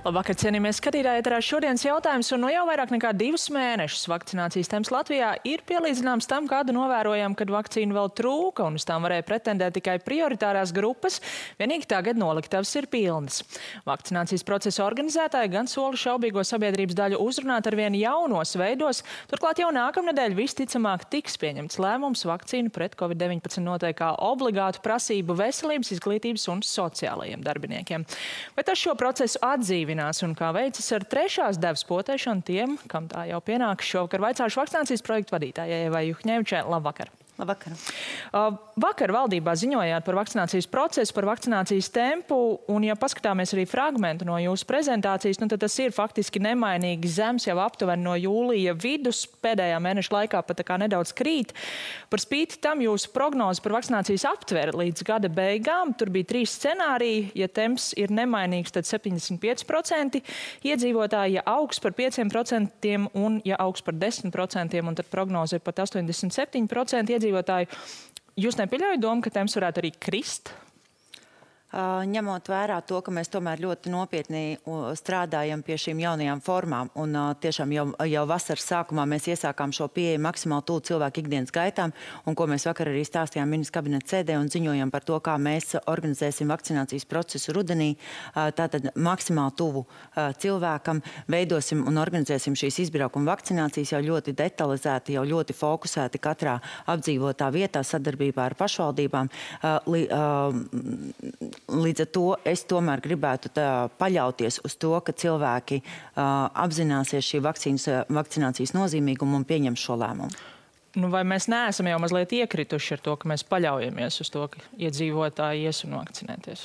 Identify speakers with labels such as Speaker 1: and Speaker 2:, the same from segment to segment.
Speaker 1: Labvakar, cienījamies skatītāji, ēterā šodienas jautājums, un no jau vairāk nekā 2 mēnešus vakcinācijas temps Latvijā ir pielīdzināms tam, kādu novērojam, kad vakcīnu vēl trūka, un uz tām varēja pretendēt tikai prioritārās grupas, vienīgi tagad noliktavas ir pilnas. Vakcinācijas procesa organizētāji gan sola šaubīgo sabiedrības daļu uzrunāt ar vien jaunos veidos, turklāt jau nākamnedēļ visticamāk tiks pieņemts lēmums vakcīnu pret Covid-19 noteikt kā obligātu prasību veselības, izglītības un sociālajiem darbiniekiem. Vai tas šo procesu atdzīvinās un kā veicas ar trešās devas potēšanu tiem, kam tā jau pienāks? Šovakar vaicāšu vakcinācijas projektu vadītājai Evai Juhņevičai. Labvakar!
Speaker 2: Labvakar.
Speaker 1: Vakar valdībā ziņojāt par vakcinācijas procesu, par vakcinācijas tempu, un ja paskatāmies arī fragmentu no jūsu prezentācijas, tad tas ir faktiski nemainīgi zems jau aptuveni no jūlija vidus, pēdējā mēneša laikā pat tā kā nedaudz krīt. Par spīti tam jūsu prognoze par vakcinācijas aptveri līdz gada beigām, tur bija 3 scenāriji, ja temps ir nemainīgs, tad 75% iedzīvotāji, ja augs par 5% un ja augs par 10%, un tad prognoze ir pat 87% iedzīvotāji. Jūs nepieļaujat domu, ka temps varētu arī krist?
Speaker 2: Ņemot vērā to, ka mēs tomēr ļoti nopietni strādājam pie šīm jaunajām formām, un tiešām jau vasaras sākumā mēs iesākām šo pieeju maksimāli tuvu cilvēku ikdienas gaitām, un ko mēs vakar arī stāstījām ministra kabineta sēdē un ziņojam par to, kā mēs organizēsim vakcinācijas procesu rudenī, tātad maksimāli tuvu cilvēkam, veidosim un organizēsim šīs izbraukuma vakcinācijas jau ļoti detalizēti, jau ļoti fokusēti katrā apdzīvotā vietā sadarbībā ar pašvaldībām. Līdz ar to es tomēr gribētu paļauties uz to, ka cilvēki apzināsies šī vakcinācijas nozīmīgumu un pieņems šo lēmumu.
Speaker 1: Vai mēs neesam jau mazliet iekrituši ar to, ka mēs paļaujamies uz to, ka iedzīvotāji ies un vakcinēties?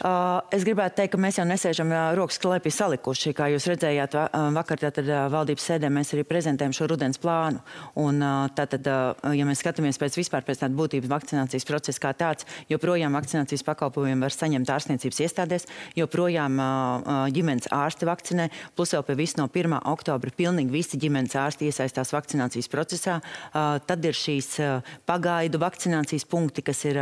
Speaker 2: Es gribētu teikt, ka mēs jau nesēžam rokas klēpī salikuši. Kā jūs redzējāt, vakar tātad valdības sēdē mēs arī prezentējam šo rudens plānu. Un tātad, ja mēs skatāmies pēc tāda būtības vakcinācijas procesa kā tāds, joprojām vakcinācijas pakalpojumi var saņemt ārstniecības iestādēs, joprojām ģimenes ārsti vakcinē, plus vēl pie visu no 1. oktobra pilnīgi visi ģimenes ārsti iesaistās vakcinācijas procesā. Tad ir šīs pagaidu vakcinācijas punkti, kas ir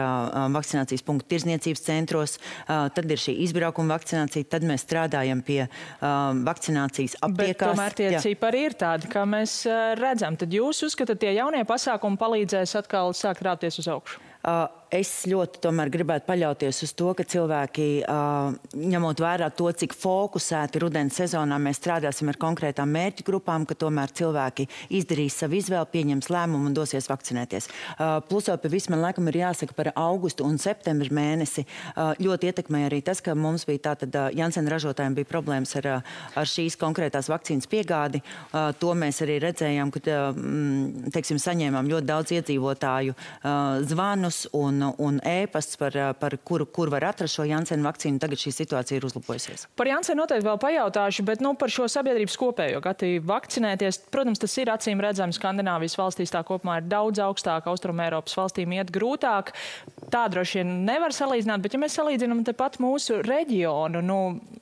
Speaker 2: vakcinācijas punkti tirdzniecības centros, tad ir šī izbraukuma vakcinācija, tad mēs strādājam pie vakcinācijas aptiekās.
Speaker 1: Bet tomēr tie cipari ir tādi, kā mēs redzam. Tad jūs uzskatāt, tie jaunie pasākumi palīdzēs atkal sākt rāpties uz augšu?
Speaker 2: Es ļoti tomēr gribētu paļauties uz to, ka cilvēki, ņemot vērā to, cik fokusēti rudens sezonā mēs strādāsim ar konkrētām mērķu grupām, ka tomēr cilvēki izdarīs savu izvēli, pieņems lēmumu un dosies vakcinēties. Plus jau pie visu man laikam ir jāsaka par augustu un septembru mēnesi. Ļoti ietekmēja arī tas, ka mums bija tātad Janssen ražotājiem bija problēmas ar šīs konkrētās vakcīnas piegādi. To mēs arī redzējām, ka, teiksim, saņēmām ļoti daudz iedzīvotāju zvanus un ēpasts par kur var atrast šo Janssen vakcīnu. Tagad šī situācija ir uzlabojusies.
Speaker 1: Par Janssen noteikti vēl pajautāšu, bet par šo sabiedrības kopējo gatavu vakcinēties. Protams, tas ir acīm redzams. Skandināvijas valstīs tā kopumā ir daudz augstāk, Austrumēropas valstīm iet grūtāk. Tā droši vien nevar salīdzināt, bet ja mēs salīdzinām tepat mūsu reģionu,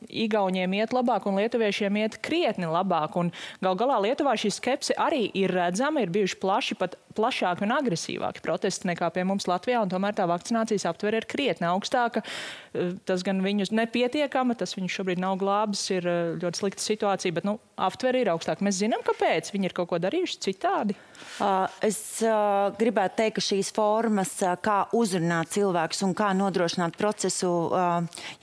Speaker 1: Igauņiem iet labāk un lietuviešiem iet krietni labāk. Un gal galā Lietuvā šī skepse arī ir redzama, ir bijuši plašāki un agresīvāki protesti nekā pie mums Latvijā, un tomēr tā vakcinācijas aptvere ir krietni augstāka. Tas gan viņus nepietiekama, tas viņus šobrīd nav glābis, ir ļoti slikta situācija, bet aptvere ir augstāka. Mēs zinām, kāpēc viņi ir kaut ko darījuši citādi.
Speaker 2: Es gribētu teikt, ka šīs formas, kā uzrunāt cilvēkus un kā nodrošināt procesu,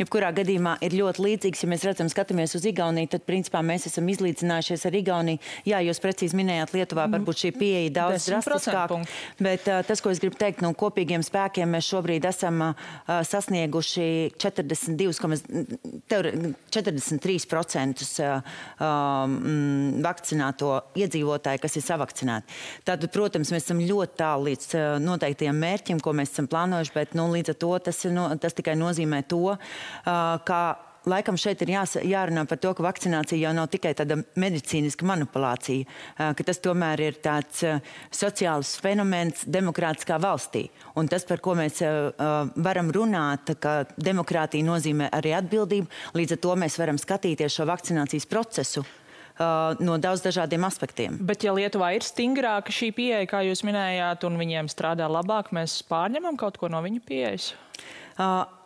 Speaker 2: jebkurā gadījumā ir ļoti līdzīgs. Ja mēs skatāmies uz Igauniju, tad principā mēs esam izlīdzinājušies ar Igauniju. Jā, jūs precīzi minējāt, Lietuvā varbūt šī pieeja daudz drastiskāk, bet tas, ko es gribu teikt, kopīgiem spēkiem mēs šobrīd esam sasnieguši 43% vakcināto iedzīvotāju, kas ir savakcinēti. Tātad, protams, mēs esam ļoti tālu līdz noteiktajiem mērķim, ko mēs esam plānojuši, bet līdz ar to tas tikai nozīmē to, ka laikam šeit ir jārunā par to, ka vakcinācija jau nav tikai tāda medicīniska manipulācija, ka tas tomēr ir tāds sociāls fenomens demokrātiskā valstī. Un tas, par ko mēs varam runāt, ka demokrātija nozīmē arī atbildību, līdz ar to mēs varam skatīties šo vakcinācijas procesu no daudz dažādiem aspektiem.
Speaker 1: Bet ja Lietuvā ir stingrāka šī pieeja, kā jūs minējāt, un viņiem strādā labāk, mēs pārņemam kaut ko no viņu pieejas?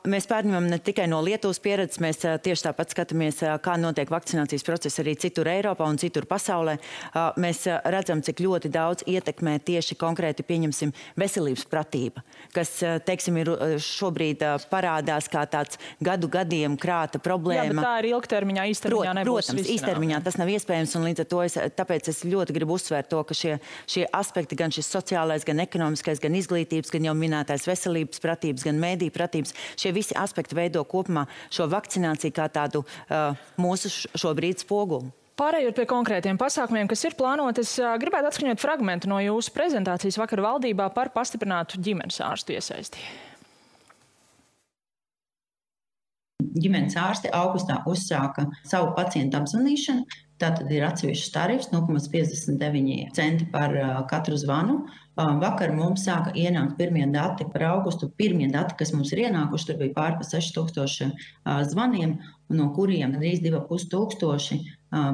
Speaker 2: Mēs pārņemam ne tikai no Lietuvas pieredzes, mēs tieši tāpat skatāmies, kā notiek vakcinācijas process arī citur Eiropā un citur pasaulē. Mēs redzam, cik ļoti daudz ietekmē tieši konkrēti, pieņemsim, veselības pratība, kas, teiksim, ir šobrīd parādās kā tāds gadiem krāta problēma.
Speaker 1: Jā, bet tā ir ilgtermiņā, īstermiņā nebūs.
Speaker 2: Protams, īstermiņā tas nav iespējams, un līdz ar to tāpēc es ļoti gribu uzsvērt to, ka šie aspekti, gan šis sociālais, gan ekonomiskais, gan izglītības, gan jau minētais veselības pratības, gan mēdī pratības, šie visi aspekti veido kopumā šo vakcināciju kā tādu mūsu šobrīd spoguli.
Speaker 1: Pārējot pie konkrētiem pasākumiem, kas ir plānoti, es gribētu atskaņot fragmentu no jūsu prezentācijas vakar valdībā par pastiprinātu ģimenes ārstu iesaisti.
Speaker 3: Ģimenes ārsti augustā uzsāka savu pacientu apzvanīšanu. Tātad ir atsevišķs tarifs, 0,59 centi par katru zvanu. Vakar mums sāka ienākt pirmie dati par augustu. Pirmie dati, kas mums ir ienākuši, tur bija pār pa 6000 zvaniem, no kuriem gandrīz 2500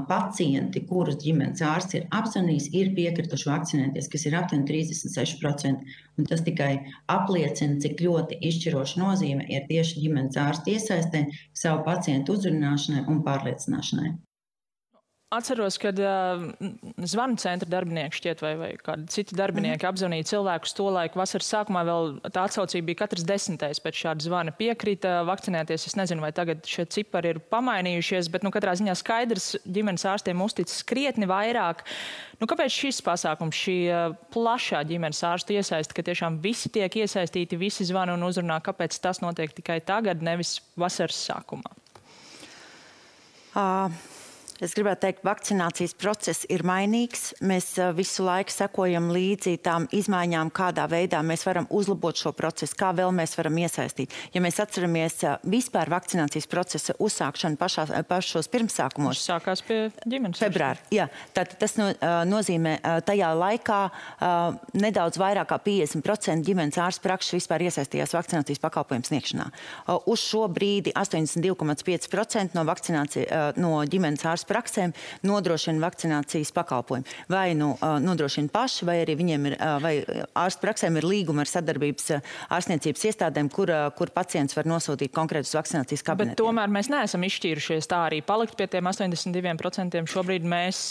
Speaker 3: pacienti, kurus ģimenes ārsts ir apzvanījis, ir piekrituši vakcinēties, kas ir aptuveni 36%. Un tas tikai apliecina, cik ļoti izšķiroša nozīme ir tieši ģimenes ārsta iesaistē savu pacientu uzrunāšanai un pārliecināšanai.
Speaker 1: Atceros, kad zvanu centra darbinieki šķiet vai kādi citi darbinieki apzvanīja cilvēkus to laiku. Vasaras sākumā vēl tā atsaucība bija katrs 10. pēc šāda zvana piekrita vakcinēties. Es nezinu, vai tagad šie cipari ir pamainījušies, bet katrā ziņā skaidrs ģimenes ārstiem uzticas krietni vairāk. Kāpēc šis pasākums, šī plašā ģimenes ārstu iesaista, ka tiešām visi tiek iesaistīti, visi zvana un uzrunā, kāpēc tas notiek tikai tagad, nevis vasaras sākumā?
Speaker 2: Es gribētu teikt, vakcinācijas process ir mainīgs. Mēs visu laiku sekojam līdzi tām izmaiņām, kādā veidā mēs varam uzlabot šo procesu, kā vēl mēs varam iesaistīt. Ja mēs atceramies vispār vakcinācijas procesa uzsākšanu pašos pirmsākumos.
Speaker 1: Tas sākās pie ģimenes ārsta.
Speaker 2: Februāri, jā. Tātad tas nozīmē tajā laikā nedaudz vairāk kā 50% ģimenes ārstu prakses vispār iesaistījās vakcinācijas pakalpojumu sniegšanā. Uz šo brīdi 82,5% no ģimenes ārstu praksēm nodrošina vakcinācijas pakalpojumu. Vai nodrošina paši, vai arī viņiem ir, vai ārstu praksēm ir līguma ar sadarbības ārstniecības iestādēm, kur pacients var nosūtīt konkrētus vakcinācijas kabinetiem.
Speaker 1: Bet tomēr mēs neesam izšķīrušies tā arī palikt pie tiem 82%. Šobrīd mēs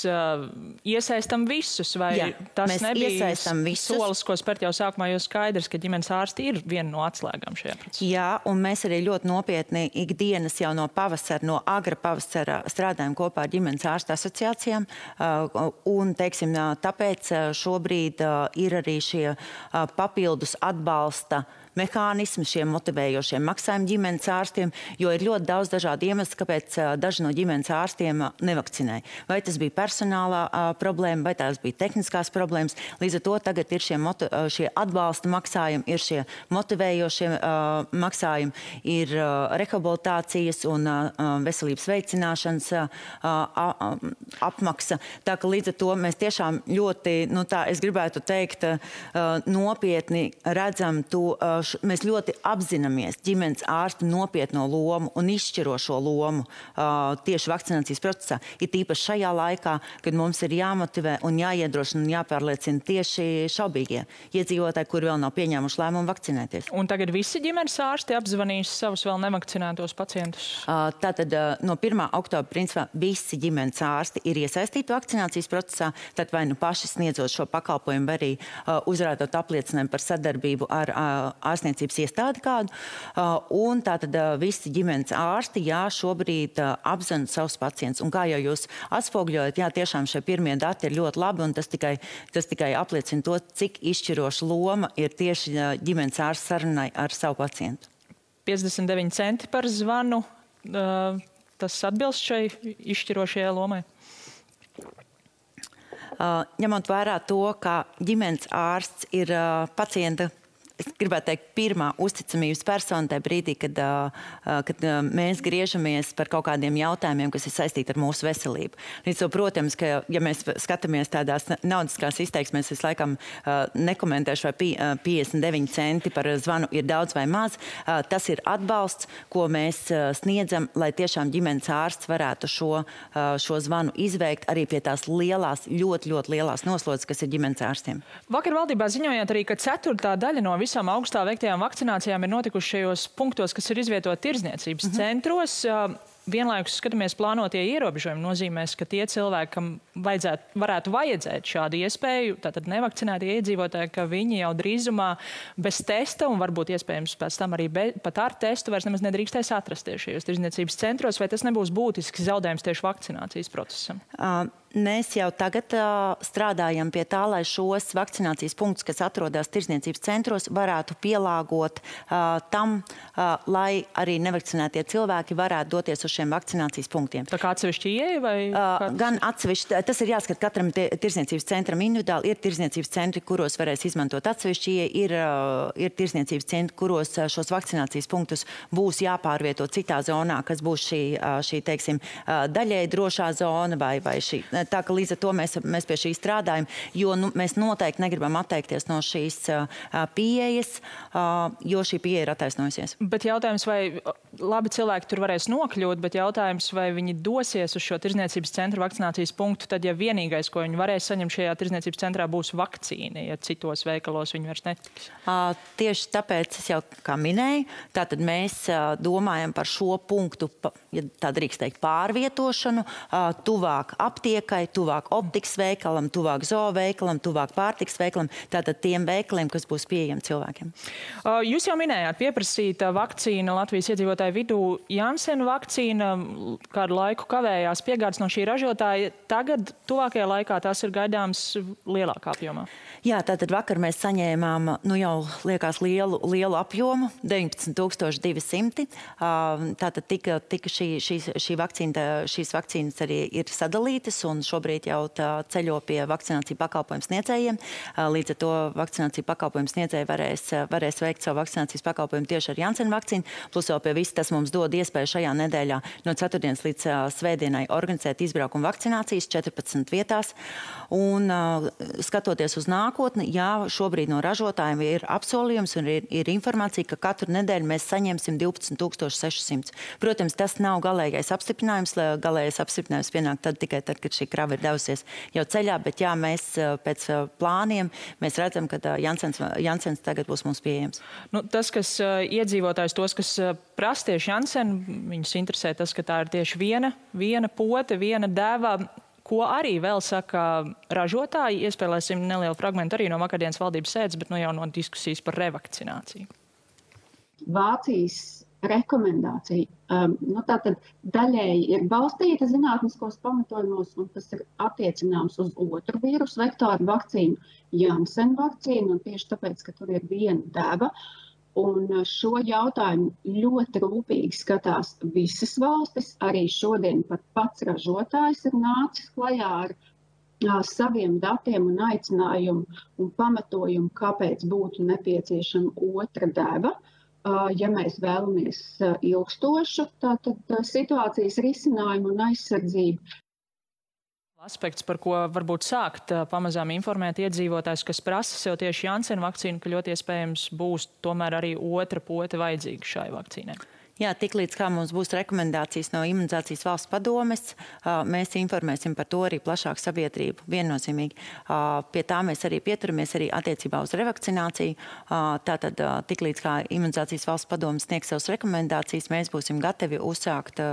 Speaker 1: iesaistam visus, vai
Speaker 2: Jā,
Speaker 1: tas nebija solis, ko spērt jau sākumā, jo skaidrs, ka ģimenes ārsti ir viena no atslēgām šajā procesā.
Speaker 2: Jā, un mēs arī ļoti nopietni ikdienas jau no pavasara, no agra pavasara strādājam kopā ar ģimenes ārstu asociācijām, un, teiksim, tāpēc šobrīd ir arī šie papildus atbalsta mehānismi, šiem motivējošiem maksājumi ģimenes ārstiem, jo ir ļoti daudz dažādu iemeslu, kāpēc daži no ģimenes ārstiem nevakcinē. Vai tas bija personālā problēma, vai tās bija tehniskās problēmas. Līdz ar to tagad ir šie atbalsta maksājumi, ir šie motivējošie maksājumi, ir rehabilitācijas un veselības veicināšanas apmaksa. Tā ka līdz ar to mēs tiešām ļoti, es gribētu teikt, nopietni redzam to, mēs ļoti apzināmies ģimenes ārstu nopietno lomu un izšķirošo lomu tieši vakcinācijas procesā. Ir tīpaši šajā laikā, kad mums ir jāmotivē un jāiedrošina un jāpārliecina tieši šaubīgie iedzīvotāji, kuri vēl nav pieņēmuši lēmumu vakcinēties.
Speaker 1: Un tagad visi ģimenes ārsti apzvanīs savus vēl nevakcinētos pacientus?
Speaker 2: Tātad no 1. oktobra principā visi ģimenes ārsti ir iesaistīti vakcinācijas procesā, tad vai paši sniedzot šo pakalpojumu, vai arī uzrādot apliecinājumu par sadarbību ar ārstniecības iestādi kādu, un tātad visi ģimenes ārsti, šobrīd apzina savus pacientus. Un kā jau jūs atspogļojat, tiešām šie pirmie dati ir ļoti labi, un tas tikai apliecina to, cik izšķiroša loma ir tieši ģimenes ārsta sarunai ar savu pacientu.
Speaker 1: 59 centi par zvanu, tas atbilst šai izšķirošajai lomai?
Speaker 2: Ņemot vērā to, ka ģimenes ārsts ir pacienta, es gribētu teikt, pirmā uzticamības persona tajā brīdī, kad mēs griežamies par kaut kādiem jautājumiem, kas ir saistīti ar mūsu veselību. Līdz to, protams, ka, ja mēs skatāmies tādās naudiskās izteiksmēs, es laikam nekomentēšu, vai 59 centi par zvanu ir daudz vai maz. Tas ir atbalsts, ko mēs sniedzam, lai tiešām ģimenes ārsts varētu šo zvanu izveikt arī pie tās lielās, ļoti lielās noslodzes, kas ir ģimenes ārstiem.
Speaker 1: Vakar valdībā ziņojāt arī, ka 1/4 daļa no visām augustā veiktajām vakcinācijām ir notikuši šajos punktos, kas ir izvietoti tirdzniecības centros. Vienlaikus skatāmies plānotie ierobežojumi nozīmēs, ka tie cilvēki, kam varētu vajadzēt šādu iespēju, tātad nevakcinētie iedzīvotāji, ka viņi jau drīzumā bez testa un varbūt iespējams pēc tam arī pat ar testu vairs nemaz nedrīkstēs atrasties šajos tirdzniecības centros, vai tas nebūs būtisks zaudējums tieši vakcinācijas procesam?
Speaker 2: Mēs jau tagad strādājam pie tā, lai šos vakcinācijas punktus, kas atrodas tirdzniecības centros, varētu pielāgot tam, lai arī nevakcinētie cilvēki varētu doties uz šiem vakcinācijas punktiem.
Speaker 1: Tā kā atsevišķi ieeja vai?
Speaker 2: Gan atsevišķi, tas ir jāskat katram tirdzniecības centram individuāli. Ir tirdzniecības centri, kuros varēs izmantot atsevišķi ieeja, ir tirdzniecības centri, kuros šos vakcinācijas punktus būs jāpārvieto citā zonā, kas būs šī teiksim, daļēji drošā zona vai šī. Tā ka līdz ar to mēs pie šī strādājam, jo mēs noteikti negribam atteikties no šīs pieejas, jo šī pieeja ir attaisnojusies.
Speaker 1: Bet jautājums, vai labi cilvēki tur varēs nokļūt, bet jautājums, vai viņi dosies uz šo tirdzniecības centra vakcinācijas punktu, tad ja vienīgais, ko viņi varēs saņemt šajā tirdzniecības centrā, būs vakcīna, ja citos veikalos viņi vairs netiks?
Speaker 2: Tieši tāpēc es jau kā minēju, tātad mēs domājam par šo punktu, ja tā drīkst teikt, pārvietošanu, tuvāk aptiekai, tuvāk optikas veikalam, tuvāk zooveikalam, tuvāk pārtikas veikalam, tātad tiem veikaliem, kas būs pieejami cilvēkiem.
Speaker 1: Jūs jau minējāt, pieprasīta vakcīna Latvijas iedzīvotāju vidū. Janssen vakcīna kādu laiku kavējās piegādes no šī ražotāja. Tagad, tuvākajā laikā, tās ir gaidāms lielākā apjomā.
Speaker 2: Jā, tātad vakar mēs saņēmām, jau liekas lielu apjomu, 19,200. Tātad tika šīs vakcīnas arī ir sadalītas un šobrīd jau ceļo pie vakcināciju pakalpojumu sniedzējiem. Līdz ar to vakcināciju pakalpojumu sniedzēji varēs veikt savu vakcinācijas pakalpojumu tieši ar Janssen vakcīnu. Plus vēl pie viss tas mums dod iespēju šajā nedēļā no ceturtdienas līdz svētdienai organizēt izbraukumu vakcinācijas 14 vietās. Un skatoties uz nākotni, jā, šobrīd no ražotājiem ir apsolījums un ir informācija, ka katru nedēļu mēs saņemsim 12,600. Protams, tas nav galīgais apstiprinājums. Galīgais apstiprinājums pienāk tikai tad, kad šī krava ir devusies jau ceļā, bet jā, mēs pēc plāniem mēs redzam, ka Janssens tagad būs mums pieejams.
Speaker 1: Tas, kas iedzīvotājs, tos, kas prasa tieši Janssen, viņus interesē tas, ka tā ir tieši viena pote, viena deva. Ko arī vēl saka ražotāji, iespēlēsim nelielu fragmentu arī no vakardienas valdības sēdes, bet jau no diskusijas par revakcināciju.
Speaker 4: Vācijas rekomendācija tātad daļēji ir balstīta zinātniskos pamatojumos, un tas ir attiecināms uz otru vīrusu vektoru vakcīnu, Janssen vakcīnu, un tieši tāpēc, ka tur ir viena deva. Un šo jautājumu ļoti rūpīgi skatās visas valstis. Arī šodien pat pats ražotājs ir nācis klajā ar saviem datiem un aicinājumu un pamatojumu, kāpēc būtu nepieciešama otra deva. Ja mēs vēlamies ilgstošu situācijas risinājumu un aizsardzību.
Speaker 1: Aspekts, par ko varbūt sākt pamazām informēt iedzīvotājs, kas prasa sev tieši Janssen vakcīnu, ka ļoti iespējams būs tomēr arī otra pote vajadzīga šai vakcīnai.
Speaker 2: Jā, tiklīdz kā mums būs rekomendācijas no Imunizācijas valsts padomes, mēs informēsim par to arī plašāku sabiedrību, viennozīmīgi. Pie tā mēs arī pieturamies arī attiecībā uz revakcināciju. Tātad tiklīdz kā Imunizācijas valsts padomes sniegs savas rekomendācijas, mēs būsim gatavi uzsākt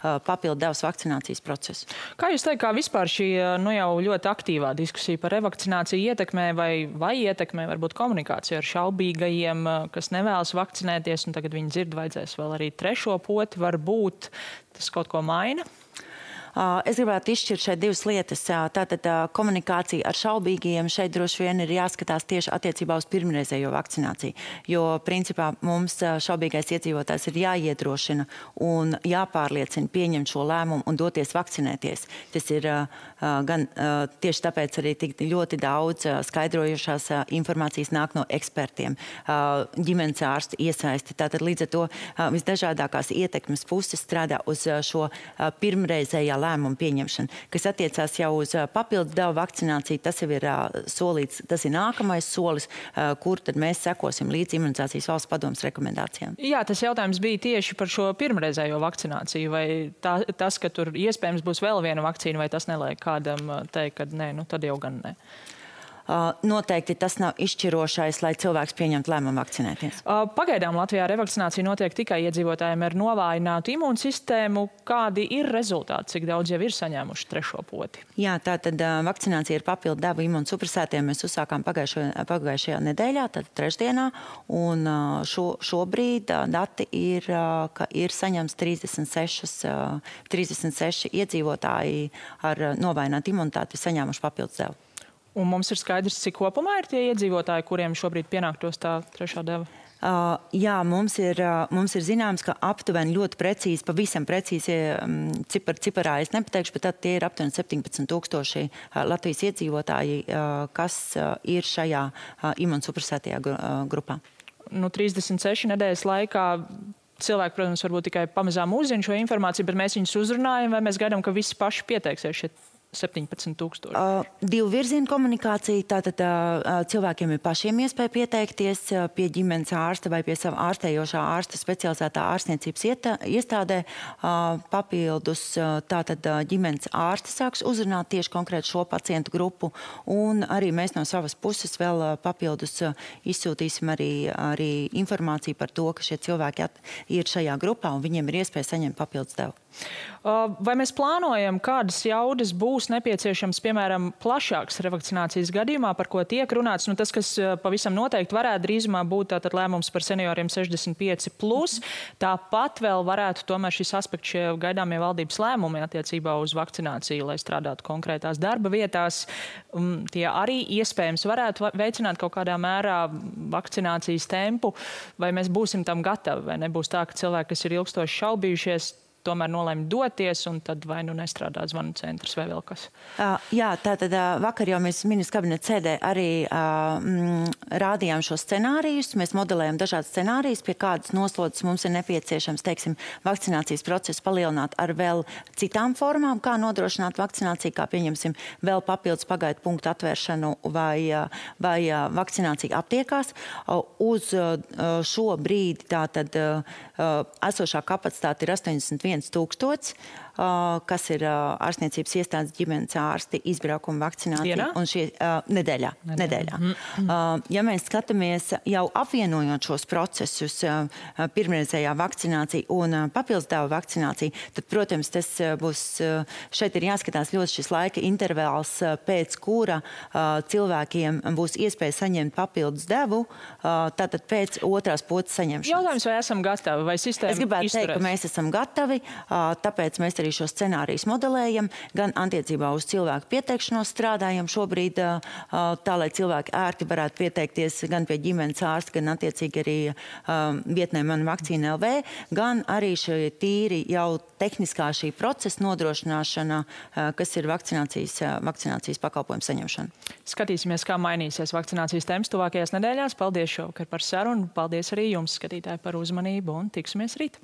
Speaker 2: papildu devas vakcinācijas procesu.
Speaker 1: Kā jūs teikt, kā vispār šī jau ļoti aktīvā diskusija par revakcināciju ietekmē vai ietekmē varbūt komunikāciju ar šaubīgajiem, kas nevēlas vakcinēties, un tagad viņi dzird, vajadzēs vēl arī trešo poti, varbūt tas kaut ko maina?
Speaker 2: Es gribētu izšķirt šeit divas lietas. Tātad komunikācija ar šaubīgajiem šeit droši vien ir jāskatās tieši attiecībā uz pirmreizējo vakcināciju, jo principā mums šaubīgais iedzīvotājs ir jāiedrošina un jāpārliecina pieņemt šo lēmumu un doties vakcinēties. Tas ir gan tieši tāpēc arī tik ļoti daudz skaidrojušās informācijas nāk no ekspertiem, ģimenes ārstu iesaisti. Tātad līdz ar to visdažādākās ietekmes puses strādā uz šo pirmreizējā lēmumu pieņemšanu. Kas attiecās jau uz papildus devu vakcināciju, tas jau ir solīts, tas ir nākamais solis, kur tad mēs sekosim līdz Imunizācijas valsts padomes rekomendācijām.
Speaker 1: Jā, tas jautājums bija tieši par šo pirmreizējo vakcināciju, vai tas, ka tur iespējams būs vēl viena vakcīna, vai tas neliek kādam teikt, ka nē, tad jau gan nē?
Speaker 2: noteikti tas nav izšķirošais, lai cilvēks pieņemtu lēmumu vakcinēties.
Speaker 1: Pagaidām Latvijā revakcinācija notiek tikai iedzīvotājiem ar novājinātu imūnsistēmu. Kādi ir rezultāti, cik daudz jau ir saņēmuši trešo poti?
Speaker 2: Jā, tātad vakcinācija ir papildu devu imunsupresētiem. Mēs uzsākām pagājušajā nedēļā, tad trešdienā, un šobrīd dati ir, ka ir saņemts 36 iedzīvotāji ar novājinātu imunitāti saņēmuši papildus devu.
Speaker 1: Un mums ir skaidrs, cik kopumā ir tie iedzīvotāji, kuriem šobrīd pienāktos tā trešā deva?
Speaker 2: Jā, mums ir zināms, ka aptuveni ļoti precīzi, pavisam precīzi ciparā es nepateikšu, bet tad tie ir aptuveni 17,000 Latvijas iedzīvotāji, kas ir šajā imunsupresētajā grupā. 36 nedēļas laikā cilvēki, protams, varbūt tikai pamazām uzzina šo informāciju, bet mēs viņus uzrunājam, vai mēs gaidām, ka visi paši pieteiksies šeit 17,000? Divu virzienu komunikācija. Tātad cilvēkiem ir pašiem iespēja pieteikties pie ģimenes ārsta vai pie sava ārstējošā ārsta specializētā ārstniecības iestādē. Papildus tātad ģimenes ārsti sāks uzrunāt tieši konkrēti šo pacientu grupu. Un arī mēs no savas puses vēl papildus izsūtīsim arī informāciju par to, ka šie cilvēki ir šajā grupā un viņiem ir iespēja saņemt papildus devu.
Speaker 1: Vai mēs plānojam, kādas jaudas būs nepieciešams, piemēram, plašāks revakcinācijas gadījumā, par ko tiek runāts? Tas, kas pavisam noteikti varētu drīzumā būt tātad lēmums par senioriem 65+. Tāpat vēl varētu tomēr šis aspekts šie gaidāmie valdības lēmumi attiecībā uz vakcināciju, lai strādātu konkrētās darba vietās. Tie arī iespējams varētu veicināt kaut kādā mērā vakcinācijas tempu. Vai mēs būsim tam gatavi? Vai nebūs tā, ka cilvēki, kas ir ilgstoši šaubījušies, tomēr nolēma doties, un tad vai nu nestrādā zvanu centrs vai vēl kas?
Speaker 2: Jā, tātad vakar jau mēs ministrs kabineta sēdē arī rādījām šos scenārijus. Mēs modelējam dažādas scenārijas, pie kādas noslodzes mums ir nepieciešams, teiksim, vakcinācijas procesu palielināt ar vēl citām formām, kā nodrošināt vakcināciju, kā pieņemsim vēl papildus pagaidu punktu atvēršanu vai vakcināciju aptiekās. Uz šo brīdi tātad esošā kapacitāte ir 81,000, kas ir ārstniecības iestādes ģimenes ārsti izbraukuma vakcinācija. Un šie nedēļā. Ja mēs skatāmies jau apvienojot šos procesus, pirmreizējā vakcinācija un papildus devu vakcinācija, tad, protams, tas būs, šeit ir jāskatās ļoti šis laika intervāls, pēc kura cilvēkiem būs iespēja saņemt papildus devu, tātad pēc otrās potes saņemšanas.
Speaker 1: Jautājums, vai esam gatavi, vai sistēma
Speaker 2: izturēs? Es gribētu teikt, ka mēs esam gatavi, tāpēc mēs arī šos scenārijus modelējam, gan attiecībā uz cilvēku pieteikšanos strādājam šobrīd, tā, lai cilvēki ērti varētu pieteikties gan pie ģimenes ārsta, gan attiecīgi arī vietnē Mana Vakcīna LV, gan arī šie tīri jau tehniskā šī procesa nodrošināšana, kas ir vakcinācijas pakalpojumu saņemšana.
Speaker 1: Skatīsimies, kā mainīsies vakcinācijas temps tuvākajās nedēļās. Paldies šovakar par sarunu. Paldies arī jums, skatītāji, par uzmanību un tiksimies rīt.